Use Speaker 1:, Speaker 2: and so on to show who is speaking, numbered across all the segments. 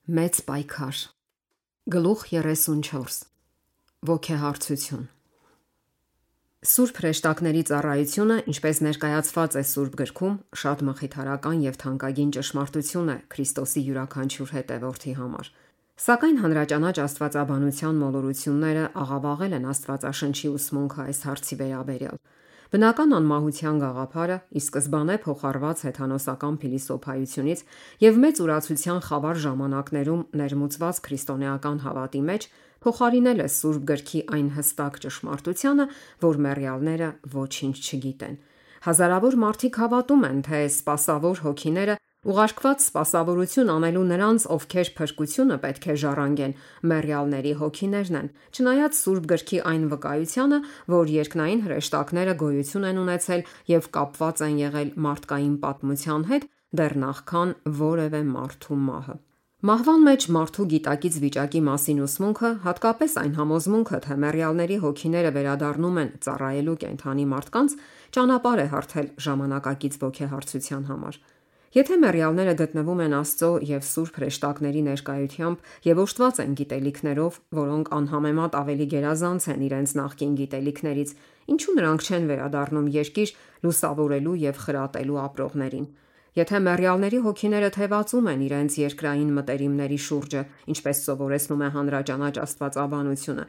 Speaker 1: Մեծ պայքար։ Գլուխ 34 Ոգեհարցություն։ Սուրբ հրեշտակների ծառայությունը, ինչպես ներկայացված է Սուրբ գրքում, շատ մխիթարական եւ թանկագին ճշմարտություն է Քրիստոսի յուրաքանչյուր հետևորդի համար։ Սակայն հանրաճանաչ աստվածաբանության մոլորությունները աղավաղել են Աստվածաշնչի ուսմունքը այս հարցի վերաբերյալ։ Բնական անմահության գաղափարը ի սկզբանե փոխառված հեթանոսական փիլիսոփայությունից եւ մեծ ուրացության խավար ժամանակներում ներմուծված քրիստոնեական հավատի մեջ փոխարինել է Սուրբ գրքի այն հստակ ճշմարտությանը, որ մեռյալները ոչինչ չգիտեն։ Հազարավոր մարդիկ հավատում են, թե սպասավոր հոգիները ուղարկված սպասավորություն անելու նրանց, ովքեր փրկությունը պետք է ժառանգեն, մեռյալների հոգիներն են, չնայած Սուրբ գրքի այն վկայությանը, որ երկնային հրեշտակները գոյություն են ունեցել եւ կապված են եղել մարդկային պատմության հետ դեռ նախքան որևէ մարդու մահը։ Մահվան մեջ մարդու գիտակից վիճակի մասին ուսմունքը, հատկապես այն համոզմունքը, թե մեռյալների հոգիները վերադառնում են ծառայելու կենդանի մարդկանց, ճանապարհ է հարթել ժամանակակից ոգեհարցության համար։ Եթե մեռյալները գտնվում են Աստծո եւ Սուրբ հրեշտակների ներկայությամբ եւ օժտված են գիտելիքներով, որոնք անհամեմատ ավելի գերազանց են իրենց նախկին գիտելիքներից, ինչու նրանք չեն վերադառնում երկիր լուսավորելու եւ խրատելու ապրողներին։ Եթե մեռյալների հոգիները թևածում են իրենց երկրային մտերիմների շուրջը, ինչպես սովորեցնում է հանրաճանաչ աստվածաբանությունը,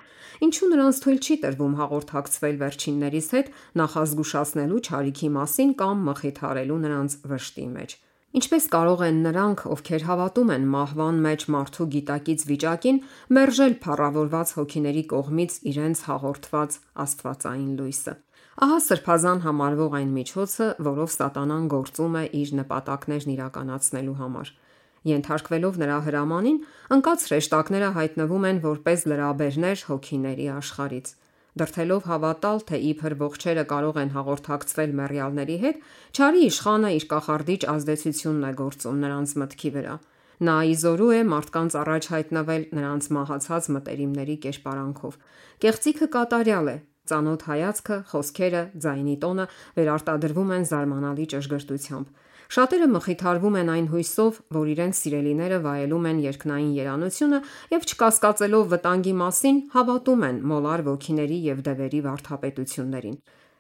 Speaker 1: ինչու նրանց թույլ չի տրվում հաղորդակցվել վերջիններիս հետ նախազգուշացնելու չարիքի մասին կամ մխիթարելու նրանց վշտի մեջ։ Ինչպես կարող են նրանք, ովքեր հավատում են մահվան մեջ մարդու գիտակից վիճակին, մերժել փառավորված հոգիների կողմից իրենց հաղորդված աստվածային լույսը։ Ահա սրբազան համարվող այն միջոցը, որով Սատանան գործում է իր նպատակներն իրականացնելու համար։ Ենթարկվելով նրա հրամանին, ընկած հրեշտակները հայտնվում են որպես լրաբերներ հոգիների աշխարհից։ Դրդելով հավատալ, թե իբր ողջերը կարող են հաղորդակցվել մեռյալների հետ, չարի իշխանը իր կախարդիչ ազդեցությունն է գործում նրանց մտքի վրա։ Նա իզորու է մարդկանց առաջ հայտնվել նրանց մահացած մտերիմների կերպարանքով։ Կեղծիքը կատարյալ է, ծանոթ հայացքը, խոսքերը, ձայնի տոնը վերարտադրվում են զարմանալի ճշգրտությամբ։ Շատերը մխիթարվում են այն հույսով, որ իրենց սիրելիները վայելում են երկնային երանությունը եւ չկասկածելով վտանգի մասին, հավատում են մոլար ոգիների եւ դևերի վարդապետություններին։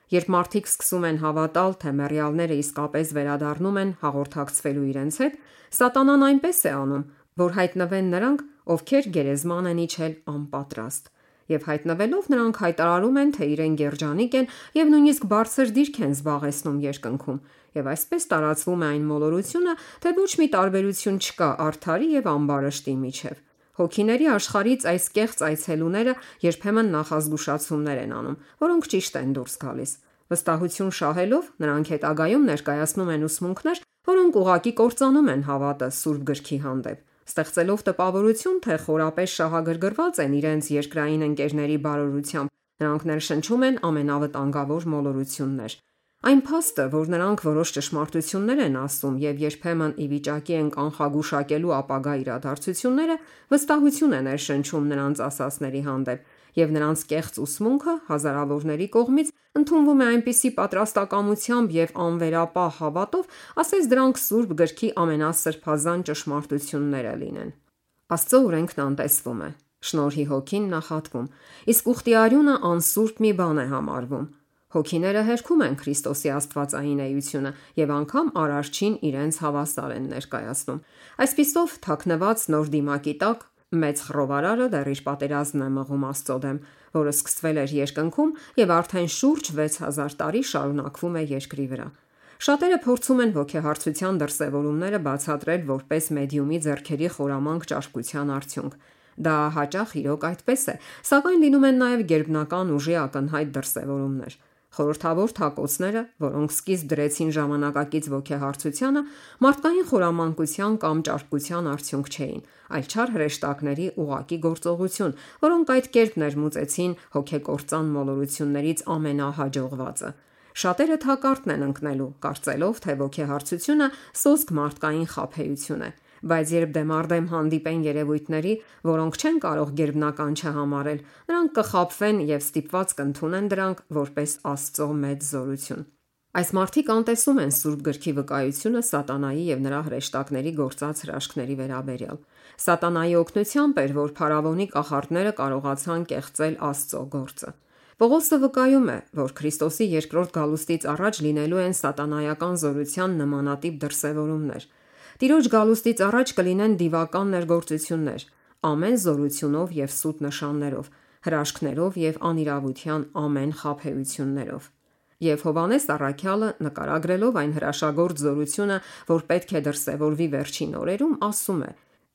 Speaker 1: Երբ մարդիկ սկսում են հավատալ, թե մեռյալները իսկապես վերադառնում են հաղորդակցվելու իրենց հետ, Սատանան այնպես է անում, որ հայտնվեն նրանք, ովքեր գերեզման են իջել անպատրաստ։ Եվ հայտնվելով նրանք հայտարարում են, թե իրեն գերջանիկ են եւ նույնիսկ բարձր դիրք են զբաղեցնում երկնքում, եւ այսպես տարածվում է այն մոլորությունը, թե ոչ մի տարբերություն չկա արդարի եւ ամբարշտի միջև։ Հոգիների աշխարհից այս կեղծ այցելուները երբեմն նախազգուշացումներ են անում, որոնք ճիշտ են դուրս գալիս։ Վստահություն շահելով, նրանք հետագայում ներկայացնում են ուսմունքներ, որոնք ուղղակի կործանում են հավատը Սուրբ գրքի հանդեպ, ստեղծելով տպավորություն, թե խորապես շահագրգռված են իրենց երկրային ընկերների բարօրությամբ, նրանք ներշնչում են ամենավտանգավոր մոլորություններ։ Այն փաստը, որ նրանք որոշ ճշմարտություններ են ասում եւ երբեմն ի վիճակի են կանխագուշակելու ապագա իրադարձությունները, վստահություն է ներշնչում նրանց ասածների հանդեպ, եւ նրանց կեղծ ուսմունքը հազարավորների կողմից ընդունվում է այնպիսի պատրաստակամությամբ եւ անվերապահ հավատով, ասես դրանք Սուրբ գրքի ամենասրբազան ճշմարտությունները լինեն։ Աստծո օրենքն անտեսվում է, շնորհի հոգին նախատվում, իսկ ուխտի արյունը անսուրբ մի բան է համարվում։ Հոգիները հերքում են Քրիստոսի աստվածային էությունը եւ անգամ արարչին իրենց հավասար են ներկայացնում։ Այսպիսով, թաքնված նոր դիմակի տակ մեծ խռովարարը դեռ իր պատերազմն է մղում Աստծո դեմ, որը սկսվել էր երկնքում եւ արդեն շուրջ 6000 տարի շարունակվում է երկրի վրա։ Շատերը փորձում են ոգեհարցության դրսևորումները բացատրել որպես մեդիումի ձեռքերի խորամանկ ճարպկության արդյունք։ Դա հաճախ իրոք այդպես է, սակայն լինում են նաև գերբնական ուժի ակնհայտ դրսևորումներ։ Խորհրդավոր թակոցները, որոնք սկիզբ դրեցին ժամանակակից ոգեհարցությանը, մարդկային խորամանկության կամ ճարպկության արդյունք չէին, այլ չար հրեշտակների ուղակի գործողություն, որոնք այդ կերպ ներմուծեցին հոգեկործան մոլորություններից ամենահաջողվածը։ Շատերը թակարդն են ընկնելու, կարծելով, թե ոգեհարցությունը սոսկ մարդկային խաբեություն է, բայց երբ դեմառդեմ հանդիպեն երևույթների, որոնք չեն կարող գերբնական չհամարել, նրանք կխաբվեն եւ ստիպված կընդունեն դրանք որպես Աստծո մեծ զորություն։ Այս մարդիկ անտեսում են Սուրբ գրքի վկայությունը սատանայի եւ նրա հրեշտակների գործած հրաշքների վերաբերյալ։ Սատանայի օգնությամբ էր, որ փարավոնի կախարդները կարողացան կեղծել Աստծո գործը։ Պողոսը վկայում է, որ Քրիստոսի երկրորդ գալուստից առաջ լինելու են սատանայական զորության նմանատիպ դրսևորումներ։ Տիրոջ գալուստից առաջ կլինեն դիվական ներգործություններ, ամեն զորությունով եւ սուտ նշաններով, հրաշքներով եւ անիրավության ամեն խաբեություններով։ Եվ Հովհաննես առաքյալը նկարագրելով այն հրաշագործ զորությունը, որ պետք է դրսևորվի վերջին օրերում, ասում է.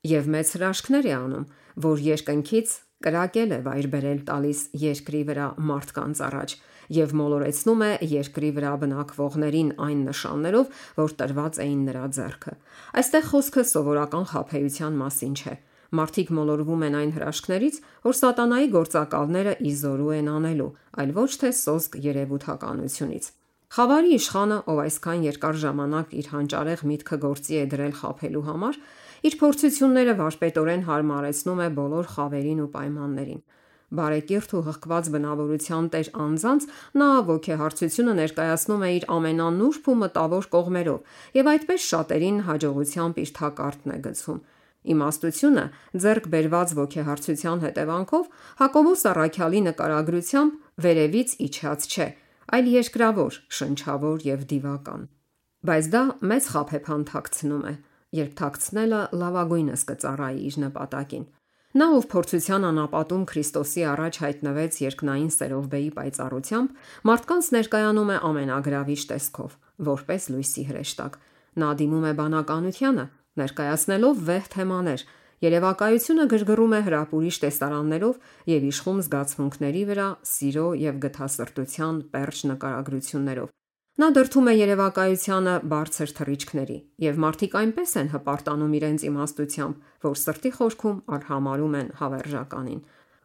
Speaker 1: «Եվ մեծ հրաշքներ է անում, որ երկնքից կրակել է վայր բերել տալիս երկրի վրա մարդկանց առաջ եւ մոլորեցնում է երկրի վրա բնակվողներին այն նշաններով, որ տրված էին նրա ձեռքը»։ Այստեղ խոսքը սովորական խաբեության մասին չէ։ Մարդիկ մոլորվում են այն հրաշքներից, որ սատանայի գործակալները ի զորու են անելու, այլ ոչ թե սոսկ երևութականությունից։ Խավարի իշխանը, ով այսքան երկար ժամանակ իր հանճարեղ միտքը գործի է դրել խաբելու համար, իր փորձությունները վարպետորեն հարմարեցնում է բոլոր խավերին ու պայմաններին։ Բարեկիրթ ու հղկված բնավորության տեր անձանց նա ոգեհարցությունը ներկայացնում է իր ամենանուրբ ու մտավոր կողմերով եւ այդպես շատերին հաջողությամբ իր թակարդն է գցում։ Իմաստությունը ձեռք բերված ոգեհարցության հետևանքով Հակոբոս առաքյալի նկարագրությամբ վերևից իջած չէ, այլ երկրավոր, շնչավոր եւ դիվական։ Բայց դա մեծ խաբեբան թաքցնում է, երբ թաքցնելը լավագույնս կծառայի իր նպատակին։ Նա, ով փորձության անապատում Քրիստոսի առաջ հայտնվեց երկնային սերովբեի պայծառությամբ, մարդկանց ներկայանում է ամենագրավիչ տեսքով, որպես լույսի հրեշտակ։ Նա դիմում է բանականությանը, ներկայացնելով վեհ թեմաներ, երևակայությունը գրգռում է հրապուրիչ տեսարաններով եւ իշխում զգացմունքների վրա սիրո եւ գթասրտության պերճ նկարագրություններով։ Նա դրդում է երևակայությանը բարձր թռիչքների, եւ մարդիկ այնպես են հպարտանում իրենց իմաստությամբ, որ սրտի խորքում արհամարհում են հավերժականին։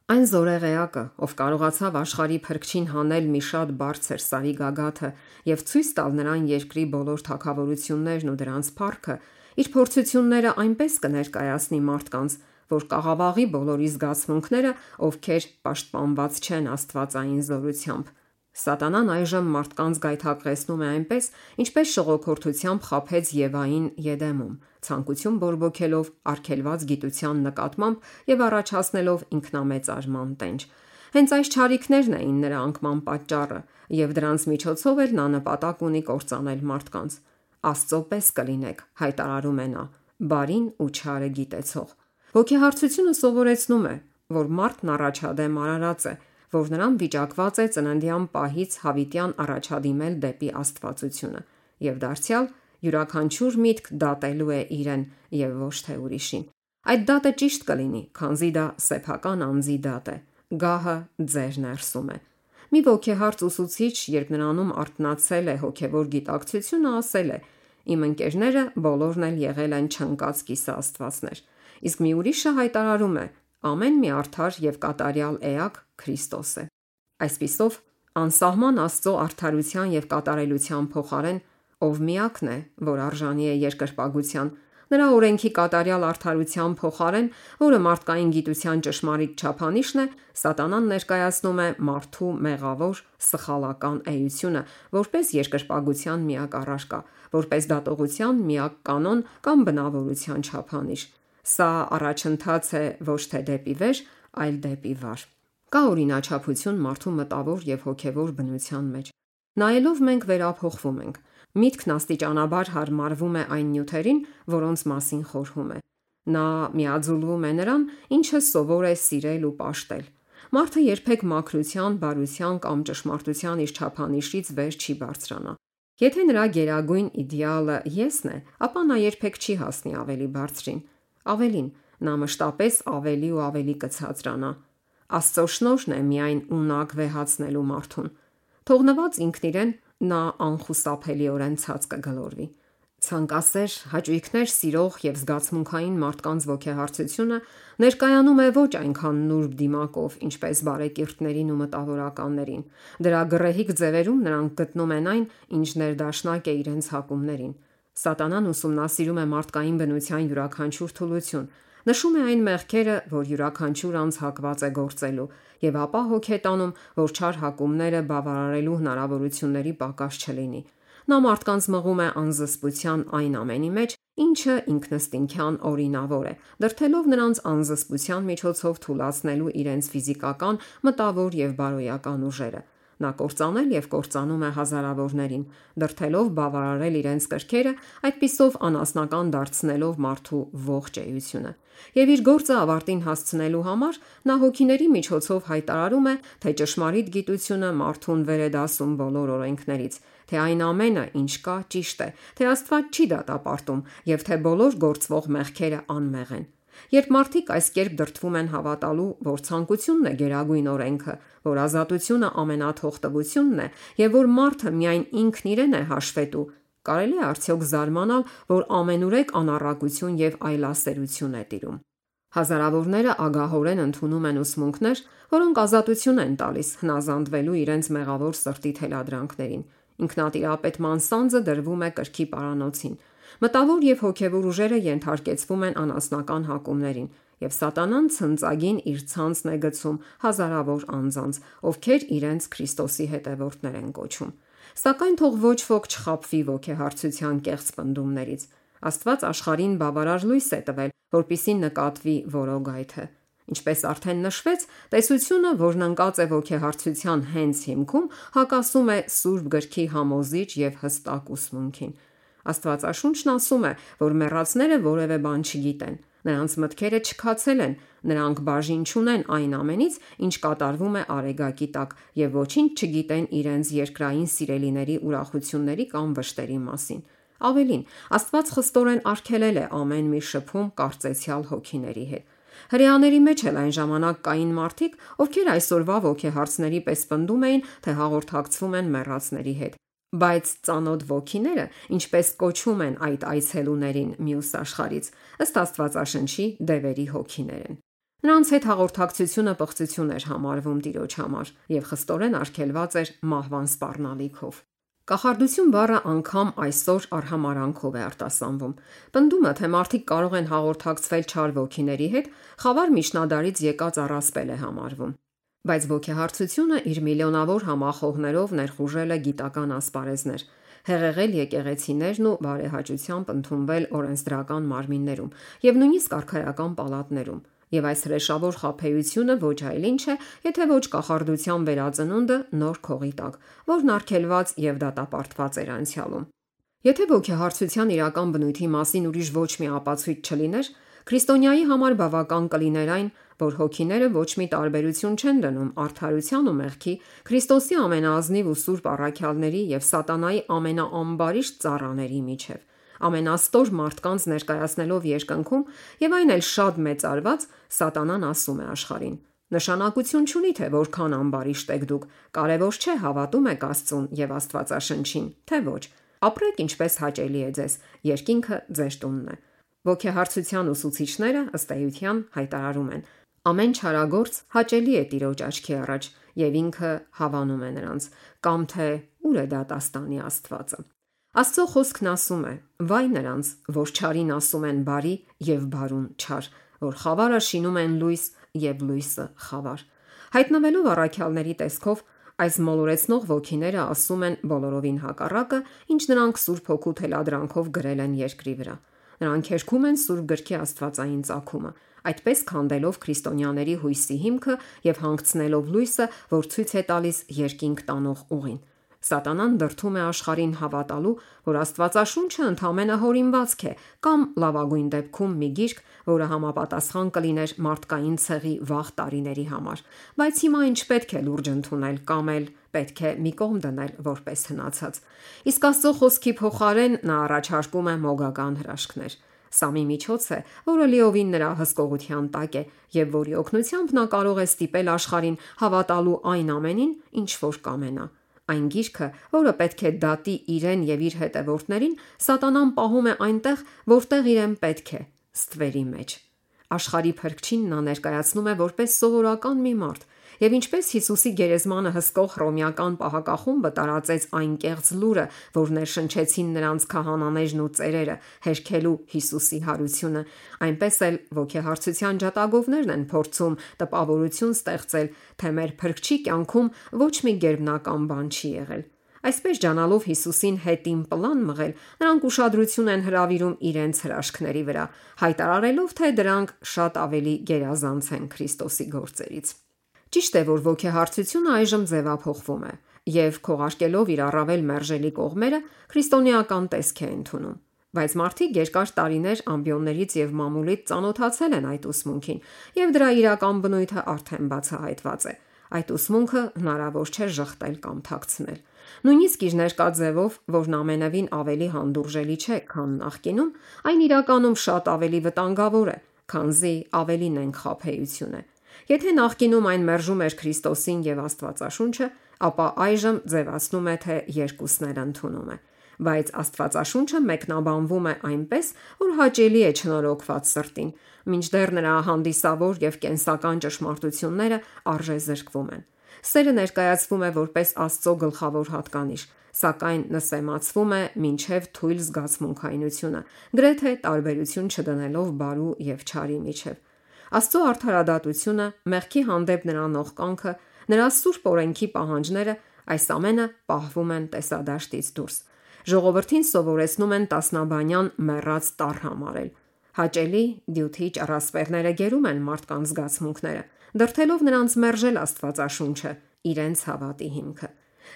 Speaker 1: Այն զորեղեակը, ով կարողացավ աշխարհի փրկչին հանել մի շատ բարձր սարի գագաթը եւ ցույց տալ նրան երկրի բոլոր թագավորություններն ու դրանց փառքը, իր փորձությունները այնպես կներկայացնի մարդկանց, որ կաղավաղի բոլորի զգացմունքները, ովքեր պաշտպանված չեն աստվածային զորությամբ։ Սատանան այժմ մարդկանց գայթակղեցնում է այնպես, ինչպես շողոքորթությամբ խաբեց Եվային Եդեմում, ցանկություն բորբոքելով արգելված գիտության նկատմամբ եւ առաջացնելով ինքնամեծարման տենչ։ Հենց այս չարիքներն էին նրա անկման պատճառը, եւ դրանց միջոցով էլ նա նպատակ ունի կործանել մարդկանց։ Աստծո պես կլինեք, հայտարարում է նա, բարին ու չարը գիտեցող։ Ոգեհարցությունը սովորեցնում է, որ մարդն առաջադեմ արարած է, որ նրան վիճակված է ծննդյան պահից հավիտյան առաջադիմել դեպի աստվածությունը եւ դարձյալ յուրաքանչյուր միտք դատելու է իրեն եւ ոչ թե ուրիշին։ Այդ դատը ճիշտ կլինի, քանզի դա սեփական անձի դատ է։ Գահը ձեր ներսում է։ Մի ոգեհարց ուսուցիչ, երբ նրանում արթնացել է հոգեվոր գիտակցությունը, ասել է. «Իմ ընկերները բոլորն էլ եղել են չընկած կիսաստվածներ»։ Իսկ մի ուրիշը հայտարարում է. «Ամեն մի արդար եւ կատարյալ էակ Քրիստոս է»։ Այսպիսով, անսահման Աստծո արդարության եւ կատարելության փոխարեն, ով միակն է, որ արժանի է երկրպագության, նրա օրենքի կատարյալ արդարության փոխարեն, որը մարդկային գիտության ճշմարիտ չափանիշն է, սատանան ներկայացնում է մարդու մեղավոր, սխալական էությունը, որպես երկրպագության միակ առարկա, որպես դատողության միակ կանոն կամ բնավորության չափանիշ։ Սա առաջընթաց է ոչ թե դեպի վեր, այլ դեպի վար։ Կա օրինաչափություն մարդու մտավոր եւ հոգեվոր բնության մեջ։ Նայելով մենք վերափոխվում ենք։ Միտքն աստիճանաբար հարմարվում է այն նյութերին, որոնց մասին խորհում է։ Նա միաձուլվում է նրան, ինչը սովոր է սիրել ու պաշտել։ Մարդը երբեք մաքրության, բարության կամ ճշմարտության իր չափանիշից վեր չի բարձրանա։ Եթե նրա գերագույն իդեալը եսն է, ապա նա երբեք չի հասնի ավելի բարձրին։ Ավելին, նա մշտապես ավելի ու ավելի կցածրանա։ Աստծո շնորհն է միայն ունակ վեհացնելու մարդուն։ Թողնված ինքն իրեն, նա անխուսափելիորեն ցած կգլորվի։ Ցանկասեր, հաճույքներ սիրող եւ զգացմունքային մարդկանց ոգեհարցությունը ներկայանում է ոչ այնքան նուրբ դիմակով, ինչպես բարեկիրթներին ու մտավորականներին։ Դրա գռեհիկ ձևերում նրանք գտնում են այն, ինչ ներդաշնակ է իրենց հակումներին։ Սատանան ուսումնասիրում է մարդկային բնության յուրաքանչյուր թուլություն, նշում է այն մեղքերը, որ յուրաքանչյուր անձ հակված է գործելու, եւ ապա հոգ է տանում, որ չար հակումները բավարարելու հնարավորությունների պակաս չլինի։ նա մարդկանց մղում է անզսպության այն ամենի մեջ, ինչը ինքնըստինքյան օրինավոր է, դրդելով նրանց անզսպության միջոցով թուլացնելու իրենց ֆիզիկական, մտավոր եւ բարոյական ուժերը։ Նա կործանել եւ կործանում է հազարավորներին, դրդելով բավարարել իրենց կրքերը, այդպիսով անասնական դարձնելով մարդու ողջ էությունը։ Եվ իր գործը ավարտին հասցնելու համար նա հոգիների միջոցով հայտարարում է, թե ճշմարիտ գիտությունը մարդուն վեր է դասում բոլոր օրենքներից, թե այն ամենը, ինչ կա, ճիշտ է, թե Աստված չի դատապարտում եւ թե բոլոր գործվող մեղքերը անմեղ են։ Երբ մարդիկ այս կերպ դրդվում են հավատալու, որ ցանկությունն է գերագույն օրենքը, որ ազատությունը ամենաթողտվությունն է եւ որ մարդը միայն ինքն իրեն է հաշվետու, կարելի է արդյոք զարմանալ, որ ամենուրեք անառակություն եւ այլասերություն է տիրում։ Հազարավորները ագահորեն ընդունում են ուսմունքներ, որոնք ազատություն են տալիս հնազանդվելու իրենց մեղավոր սրտի թելադրանքներին։ Ինքնատիրապետման սանձը դրվում է կրքի պարանոցին։ Մտավոր եւ հոգեվոր ուժերը ենթարկեցվում են անասնական հակումներին, եւ Սատանան ցնծագին իր ցանցն է գցում հազարավոր անձանց, ովքեր իրենց Քրիստոսի հետևորդներ են կոչում։ Սակայն թող ոչ ոք չխաբվի ոգեհարցության կեղծ պնդումներից։ Աստված աշխարհին բավարար լույս է տվել, որպիսի նկատվի որոգայթը։ Ինչպես արդեն նշվեց, տեսությունը, որն ընկած է ոգեհարցության հենց հիմքում, հակասում է Սուրբ գրքի համոզիչ եւ հստակ ուսմունքին։ Աստվածաշունչն ասում է, որ մեռածները որևէ բան չգիտեն։ Նրանց մտքերը չքացել են, նրանք բաժին չունեն այն ամենից, ինչ կատարվում է արեգակի տակ, եւ ոչինչ չգիտեն իրենց երկրային սիրելիների ուրախությունների կամ վշտերի մասին։ Ավելին, Աստված խստորեն արգելել է ամեն մի շփում կարծեցյալ հոգիների հետ։ Հրեաների մեջ էլ այն ժամանակ կային մարդիկ, ովքեր այսօրվա ոգեհարցների պես պնդում էին, թե հաղորդակցվում են մեռածների հետ։ Բայց ծանոթ ոգիները, ինչպես կոչում են այդ այցելուներին մյուս աշխարից, ըստ Աստվածաշնչի դևերի հոգիներ են։ Նրանց հետ հաղորդակցությունը պղծություն էր համարվում Տիրոջ համար եւ խստորեն արգելված էր մահվան սպառնալիքով։ Կախարդություն բառը անգամ այսօր արհամարանքով է արտասանվում։ Պնդումը, թե մարդիկ կարող են հաղորդակցվել չար ոգիների հետ, խավար միջնադարից եկած առասպել է համարվում։ Բայց ոգեհարցությունը իր միլիոնավոր համախոհներով ներխուժել է գիտական ասպարեզներ, հեղեղել եկեղեցիներն ու բարեհաճությամբ ընդունվել օրենսդրական մարմիններում եւ նույնիսկ արքայական պալատներում։ Եվ այս հրեշավոր խաբեությունը ոչ այլ ինչ է, եթե ոչ կախարդության վերածնունդը նոր քողի տակ, որն արգելված եւ դատապարտված էր անցյալում։ Եթե ոգեհարցության իրական բնույթի մասին ուրիշ ոչ մի ապացույց չլիներ, քրիստոնյայի համար բավական կլիներ այն, որ հոգիները ոչ մի տարբերություն չեն դնում արդարության ու մեղքի, Քրիստոսի ամենաազնիվ ու սուրբ առաքյալների եւ սատանայի ամենաամբարիշտ ծառաների միջև։ Ամենաստոր մարդկանց ներկայացնելով երկնքում եւ այն էլ շատ մեծարված, Սատանան ասում է աշխարհին. նշանակություն չունի թե որքան ամբարիշտ եք դուք, կարևոր չէ հավատում եք Աստծուն եւ Աստվածաշնչին, թե ոչ։ Ապրեք ինչպես հաճելի է ձեզ, երկինքը ձեր տունն է։ Ոգեհարցության ուսուցիչները ըստ էության հայտարարում են. ամեն չարագործ հաճելի է Տիրոջ աչքի առաջ եւ ինքը հավանում է նրանց, կամ թե ուր է դատաստանի Աստվածը։ Աստծո խոսքն ասում է. վայ նրանց, որ չարին ասում են բարի եւ բարուն չար, որ խավարը շինում են լույս եւ լույսը խավար։ Հայտնվելով առաքյալների տեսքով, այս մոլորեցնող ոգիները ասում են բոլորովին հակառակը, ինչ նրանք Սուրբ Հոգու թելադրանքով գրել են երկրի վրա։ Նրանք հերքում են Սուրբ գրքի աստվածային ծագումը, այդպես քանդելով քրիստոնյաների հույսի հիմքը եւ հանգցնելով լույսը, որ ցույց է տալիս երկինք տանող ուղին։ Սատանան դրդում է աշխարհին հավատալու, որ Աստվածաշունչը ընդամենը հորինվածք է կամ լավագույն դեպքում մի գիրք, որը համապատասխան կլիներ մարդկային ցեղի վաղ տարիների համար, բայց հիմա ինչ պետք է լուրջ ընդունել կամ էլ պետք է մի կողմ դնել որպես հնացած։ Իսկ Աստծո խոսքի փոխարեն նա առաջարկում է մոգական հրաշքներ։ Սա մի միջոց է, որը լիովին նրա հսկողության տակ է եւ որի օգնությամբ նա կարող է ստիպել աշխարհին հավատալու այն ամենին, ինչ որ կամենա։ Այն գիրքը, որը պետք է դատի իրեն եւ իր հետևորդներին, Սատանան պահում է այնտեղ, որտեղ իրեն պետք է՝ ստվերի մեջ։ Աշխարհի փրկչին նա ներկայացնում է որպես սովորական մի մարդ, եւ ինչպես Հիսուսի գերեզմանը հսկող հռոմեական պահակախումբը տարածեց այն կեղծ լուրը, որ ներշնչեցին նրանց քահանաներն ու ծերերը, հերքելու Հիսուսի հարությունը, այնպես էլ ոգեհարցության ջատագովներն են փորձում տպավորություն ստեղծել, թե մեր փրկչի կյանքում ոչ մի գերբնական բան չի եղել։ Այսպես ջանալով Հիսուսին հետին պլան մղել, նրանք ուշադրություն են հրավիրում իրենց հրաշքների վրա, հայտարարելով, թե դրանք շատ ավելի գերազանց են Քրիստոսի գործերից։ Ճիշտ է, որ ոգեհարցությունը այժմ ձևափոխվում է եւ քողարկելով իր առավել մերժելի կողմերը, քրիստոնեական տեսք է ընդունում։ Բայց մարդիկ երկար տարիներ ամբիոններից եւ մամուլից ծանոթացել են այդ ուսմունքին, եւ դրա իրական բնույթը արդեն բացահայտված է։ Այդ ուսմունքը հնարավոր չէ ժխտել կամ թաքցնել։ Նույնիսկ իր ներկա ձևով, որն ամենևին ավելի հանդուրժելի չէ, քան նախկինում, այն իրականում շատ ավելի վտանգավոր է, քանզի ավելի նենք խաբեություն է։ Եթե նախկինում այն մերժում էր Քրիստոսին եւ Աստվածաշունչը, ապա այժմ ձևացնում է, թե երկուսն էլ ընդունում է։ Բայց Աստվածաշունչը մեկնաբանվում է այնպես, որ հաճելի է չնորոգված սրտին, մինչդեռ նրա հանդիսավոր եւ կենսական ճշմարտությունները արժեզրկվում են։ Սերը ներկայացվում է որպես Աստծո գլխավոր հատկանիշ, սակայն նսեմացվում է մինչև թույլ զգացմունքայնությունը, գրեթե տարբերություն չդնելով բարու եւ չարի միջև։ Աստծո արդարադատությունը, մեղքի հանդեպ նրա նողկանքը, նրա սուրբ օրենքի պահանջները, այս ամենը պահվում են տեսադաշտից դուրս։ Ժողովրդին սովորեցնում են տասնաբանյան մեռած տառ համարել։ Հաճելի դյութիչ առասպելները գերում են մարդկանց զգացմունքները, դրթելով նրանց մերժել Աստվածաշունչը, իրենց հավատի հիմքը։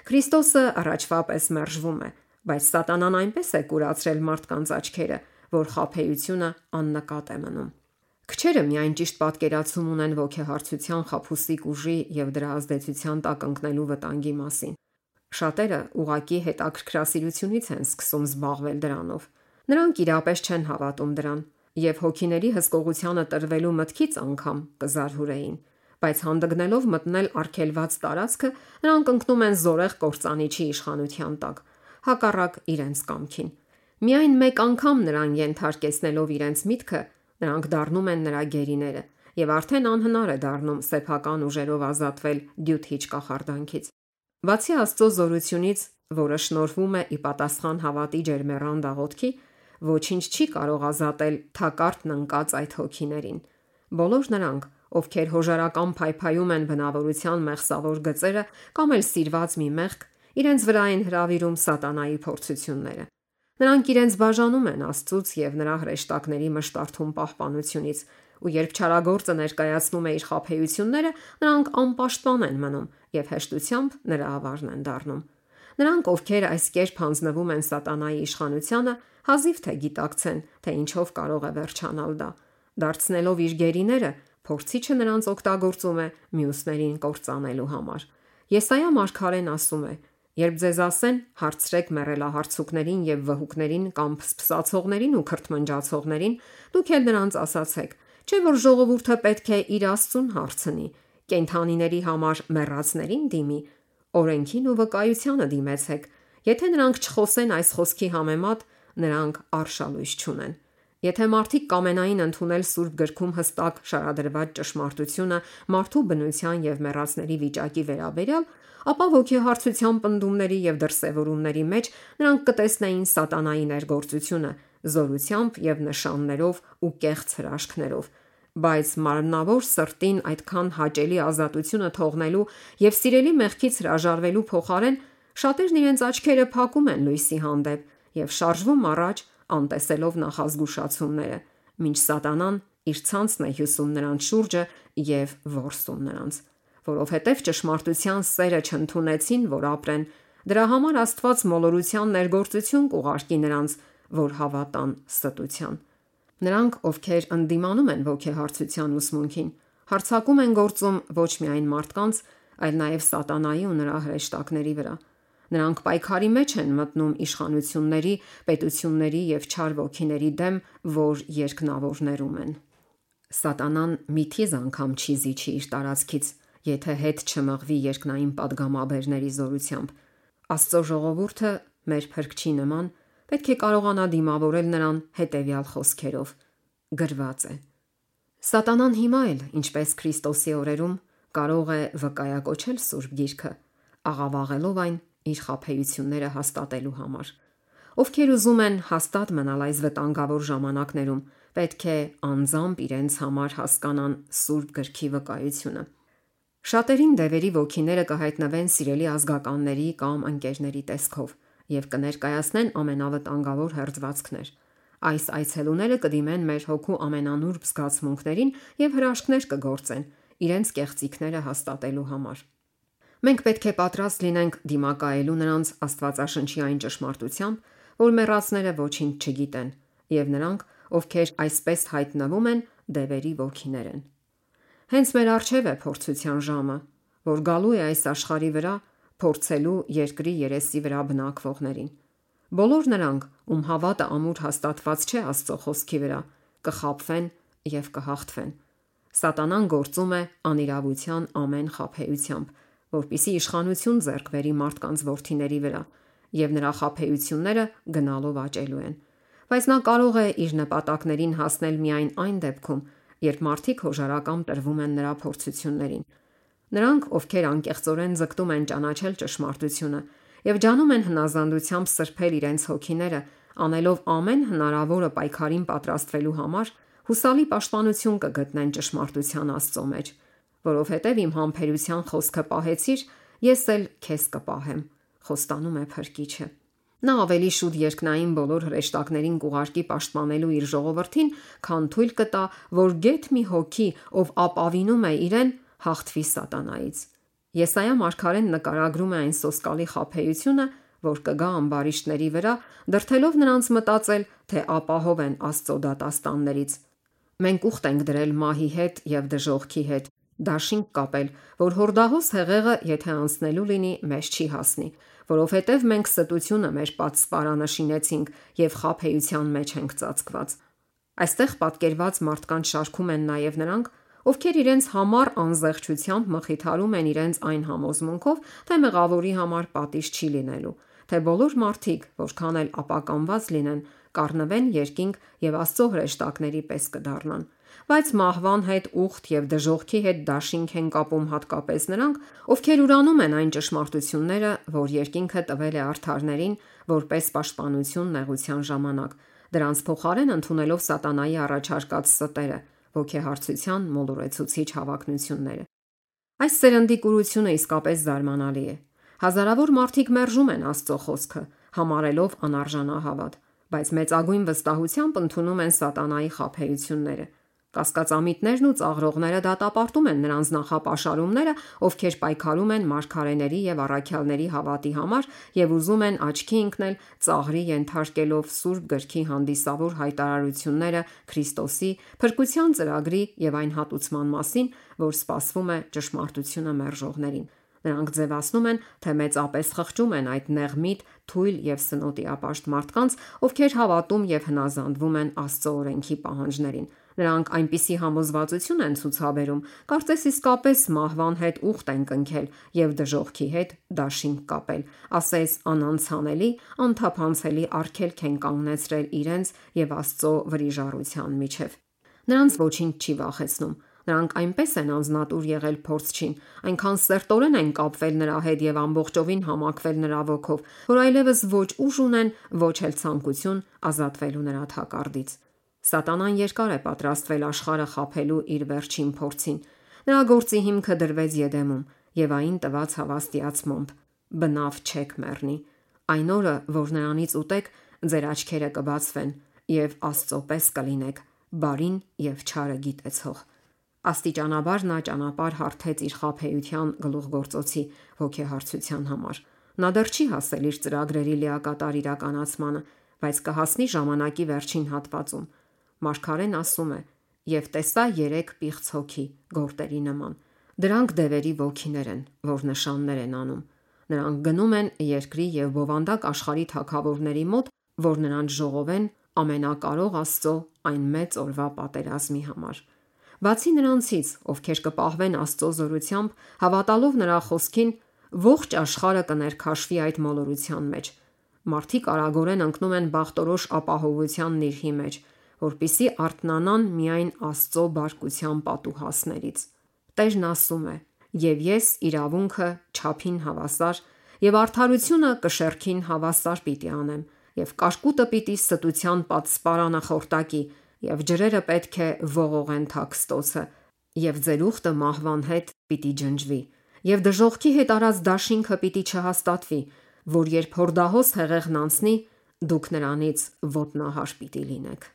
Speaker 1: Քրիստոսը առաջվա պես մերժվում է, բայց Սատանան այնպես է կուրացրել մարդկանց աչքերը, որ խաբեությունը աննկատ է մնում։ Քչերը միայն ճիշտ պատկերացում ունեն ոգեհարցության խաբուսիկ ուժի եւ դրա ազդեցության տակ ընկնելու վտանգի մասին։ Շատերը ուղակի հետաքրքրասիրությունից են սկսում զբաղվել դրանով։ Նրանք իրապես չեն հավատում դրան եւ հոգիների հսկողությանը տրվելու մտքից անգամ կզարհուրեին, բայց հանդգնելով մտնել արգելված տարածքը, նրանք ընկնում են զորեղ կործանիչի իշխանության տակ, հակառակ իրենց կամքին։ Միայն մեկ անգամ նրան ենթարկեցնելով իրենց միտքը, նրանք դառնում են նրա գերիները եւ արդեն անհնար է դառնում սեփական ուժերով ազատվել դյութիչ կախարդանքից։ Բացի Աստծո զորությունից, որը շնորհվում է ի պատասխան հավատի ջերմեռան դաղոթքի, ոչինչ չի կարող ազատել թակարդն ընկած այդ հոգիներին։ Բոլոր նրանք, ովքեր հոժարական փայփայում են բնավորության մեղսավոր գծերը կամ էլ սիրված մի մեղք, իրենց վրա են հրավիրում սատանայի փորձությունները։ Նրանք իրենց բաժանում են Աստծուց եւ նրա հրեշտակների մշտարթուն պահպանությունից, ու երբ չարագործը ներկայացնում է իր խաբեությունները, նրանք անպաշտպան են մնում եւ հեշտությամբ նրա ավարն են դառնում։ Նրանք, ովքեր այս կերպ հանձնվում են սատանայի իշխանությանը, հազիվ թե գիտակցեն, թե ինչով կարող է վերջանալ դա։ Դարձնելով իր գերիները, փորձիչը նրանց օգտագործում է մյուսներին կործանելու համար։ Եսայա մարգարեն ասում է. «Երբ ձեզ ասեն, հարցրեք մեռելահարցուկներին եւ վհուկներին կամ փսփսացողներին ու քրթմնջացողներին, դուք էլ նրանց ասացեք, չէ՞ որ ժողովուրդը պետք է իր Աստծուն հարցնի, կենդանիների համար մեռածներին դիմի, օրենքին ու վկայությանը դիմեցեք։ Եթե նրանք չխոսեն այս խոսքի համեմատ, նրանք արշալույս չունեն»։ Եթե մարդիկ կամենային ընդունել Սուրբ գրքում հստակ շարադրված ճշմարտությունը մարդու բնության եւ մեռածների վիճակի վերաբերյալ, ապա ոգեհարցության պնդումների եւ դրսեւորումների մեջ նրանք կտեսնեին սատանայի ներգործությունը զորությամբ եւ նշաններով ու կեղծ հրաշքներով, բայց մարմնավոր սրտին այդքան հաճելի ազատությունը թողնելու եւ սիրելի մեղքից հրաժարվելու փոխարեն շատերն իրենց աչքերը փակում են լույսի հանդեպ եւ շարժվում առաջ անտեսելով նախազգուշացումները, մինչ սատանան իր ցանցն է հյուսում նրանց շուրջը եւ որսում նրանց, որովհետեւ ճշմարտության սերը չընդունեցին, որ ապրեն, դրա համար Աստված մոլորության ներգործություն կուղարկի նրանց, որ հավատան ստության։ Նրանք, ովքեր ընդդիմանում են ոգեհարցության ուսմունքին, հարձակում են գործում ոչ միայն մարդկանց, այլ նաեւ սատանայի ու նրա հրեշտակների վրա։ Նրանք պայքարի մեջ են մտնում իշխանությունների, պետությունների եւ չար ոգիների դեմ, որ երկնավորներում են։ Սատանան միթիզ անգամ չի զիջի իր տարածքից, եթե հետ չմղվի երկնային падգամաբերների զորությամբ։ Աստծո ժողովուրդը մեր Փրկչի նման պետք է կարողանա դիմավորել նրան հետևյալ խոսքերով. գրված է. Սատանան հիմա էլ, ինչպես Քրիստոսի օրերում, կարող է վկայակոչել Սուրբ Գիրքը, աղավաղելով այն իր խաբեությունները հաստատելու համար։ Ովքեր ուզում են հաստատ մնալ այս վտանգավոր ժամանակներում, պետք է անձամբ իրենց համար հասկանան Սուրբ Գրքի վկայությունը։ Շատերին դևերի ոգիները կհայտնվեն սիրելի ազգականների կամ ընկերների տեսքով եւ կներկայացնեն ամենավտանգավոր հերձվածքներ։ Այս այցելուները կդիմեն մեր հոգու ամենանուրբ զգացմունքներին եւ հրաշքներ կգործեն իրենց կեղծիքները հաստատելու համար։ Մենք պետք է պատրաստ լինենք դիմակայելու նրանց Աստվածաշնչի այն ճշմարտությամբ, որ մեռածները ոչինչ չգիտեն, եւ նրանք, ովքեր այսպես հայտնվում են, դևերի ոգիներ են։ Հենց մեր առջև է փորձության ժամը, որ գալու է այս աշխարհի վրա փորձելու երկրի երեսի վրա բնակվողներին։ Բոլոր նրանք, ում հավատը ամուր հաստատված չէ Աստծո խոսքի վրա, կխաբվեն եւ կհաղթվեն։ Սատանան գործում է անիրավության ամեն խաբեությամբ, որպիսի իշխանություն ձեռք բերի մարդկանց որդիների վրա, եւ նրա խաբեությունները գնալով աճելու են։ Բայց նա կարող է իր նպատակներին հասնել միայն այն դեպքում, երբ մարդիկ հոժարակամ տրվում են նրա փորձություններին։ Նրանք, ովքեր անկեղծորեն ձգտում են ճանաչել ճշմարտությունը եւ ջանում են հնազանդությամբ սրբել իրենց հոգիները, անելով ամեն հնարավորը պայքարին պատրաստվելու համար, հուսալի պաշտպանություն կգտնեն ճշմարտության Աստծո մեջ, որովհետև իմ համբերության խոսքը պահեցիր, ես էլ քեզ կպահեմ, խոստանում է Փրկիչը։ Նա ավելի շուտ երկնային բոլոր հրեշտակներին կուղարկի պաշտպանելու իր ժողովրդին, քան թույլ կտա, որ գեթ մի հոգի, ով ապավինում է իրեն, հաղթվի սատանայից։ Եսայա մարգարեն նկարագրում է այն սոսկալի խաբեությունը, որ կգա ամբարիշտների վրա, դրդելով նրանց մտածել, թե ապահով են Աստծո դատաստաններից։ Մենք ուխտ ենք դրել մահի հետ եւ դժոխքի հետ, դաշինք կապել, որ հորդահոս հեղեղը, եթե անցնելու լինի, մեզ չի հասնի, որովհետև մենք ստությունը մեր պատսպարանը շինեցինք եւ խաբեության մեջ ենք ծածկված։ Այստեղ պատկերված մարդկանց շարքում են նաեւ նրանք, ովքեր իրենց համառ անզեղչությամբ մխիթարում են իրենց այն համոզմունքով, թե մեղավորի համար պատիժ չի լինելու, թե բոլոր մարդիկ, որքան էլ ապականված լինեն, կառնվեն երկինք եւ Աստծո հրեշտակների պես կդառնան։ Բայց մահվան հետ ուխտ եւ դժոխքի հետ դաշինք են կապում հատկապես նրանք, ովքեր ուրանում են այն ճշմարտությունները, որ երկինքը տվել է արդարներին, որպես պաշտպանություն նեղության ժամանակ, դրանց փոխարեն ընդունելով սատանայի առաջարկած ստերը, ոգեհարցության մոլորեցուցիչ հավակնությունները։ Այս սերնդի կուրությունը իսկապես զարմանալի է։ Հազարավոր մարդիկ մերժում են Աստծո խոսքը, համարելով անարժանահավատ, բայց մեծագույն վստահությամբ ընդունում են սատանայի խաբեությունները։ Կասկածամիտներն ու ծաղրողները դատապարտում են նրանց նախապաշարումները, ովքեր պայքարում են մարգարեների եւ առաքյալների հավատի համար եւ ուզում են աչքի ընկնել ծաղրի ենթարկելով Սուրբ Գրքի հանդիսավոր հայտարարությունները Քրիստոսի փրկության ծրագրի եւ այն հատուցման մասին, որ սպասվում է ճշմարտությունը մերժողներին։ Նրանք ձևացնում են, թե մեծապես խղճում են այդ նեղմիտ, թույլ եւ սնոտիապաշտ մարդկանց, ովքեր հավատում եւ հնազանդվում են Աստծո օրենքի պահանջներին։ Նրանք այնպիսի համոզվածություն են ցուցաբերում, կարծես իսկապես մահվան հետ ուխտ են կնքել եւ դժոխքի հետ դաշինք կապել, ասես անանցանելի, անթափանցելի արգելք են կանգնեցրել իրենց եւ Աստծո վրիժառության միջև։ Նրանց ոչինչ չի վախեցնում։ Նրանք այնպես են անznատուր եղել փորձչին, այնքան սերտորեն են կապվել նրա հետ եւ ամբողջովին համակվել նրա ոգով, որ այլևս ոչ ուժ ունեն, ոչ էլ ցանկություն ազատվելու նրա թակարդից։ Սատանան երկար է պատրաստվել աշխարհը խաբելու իր վերջին փորձին։ Նրա գործի հիմքը դրվեց Եդեմում եւ այն տված հավաստիացմամբ. բնավ չեք մեռնի։ Այն օրը, որ նրանից ուտեք, ձեր աչքերը կբացվեն եւ Աստծո պես կլինեք, բարին եւ չարը գիտեցող։ Աստիճանաբար նա ճանապարհ հարթեց իր խաբեության գլուխգործոցի ոգեհարցության համար։ Նա դեռ չի հասել իր ծրագրերի լիակատար իրականացմանը, բայց կհասնի ժամանակի վերջին հատվածում։ Մարգարեն ասում է. «Եվ տեսա 3 պիղծ հոգի գորտերի նման։ Դրանք դևերի ոգիներ են, որ նշաններ են անում։ Նրանք գնում են երկրի եւ բովանդակ աշխարհի թագավորների մոտ, որ նրանց ժողովեն ամենակարող Աստծո այն մեծ օրվա պատերազմի համար։ Բացի նրանցից, ովքեր կպահվեն Աստծո զորությամբ, հավատալով նրա խոսքին, ողջ աշխարհը կներքաշվի այդ մոլորության մեջ։ Մարդիկ արագորեն ընկնում են բախտորոշ ապահովության նիրհի մեջ, որպիսի արթնանան միայն Աստծո բարկության պատուհասներից։ Տերն ասում է. «Եվ ես իրավունքը չափին հավասար եւ արդարությունը կշեռքին հավասար պիտի անեմ, եւ կարկուտը պիտի ստության պատսպարանը խորտակի, եւ ջրերը պետք է ողողեն թաքստոցը, եւ ձեր ուխտը մահվան հետ պիտի ջնջվի, եւ դժոխքի հետ արած դաշինքը պիտի չհաստատվի, որ երբ հորդահոս հեղեղն անցնի, դուք նրանից ոտնահար պիտի լինեք։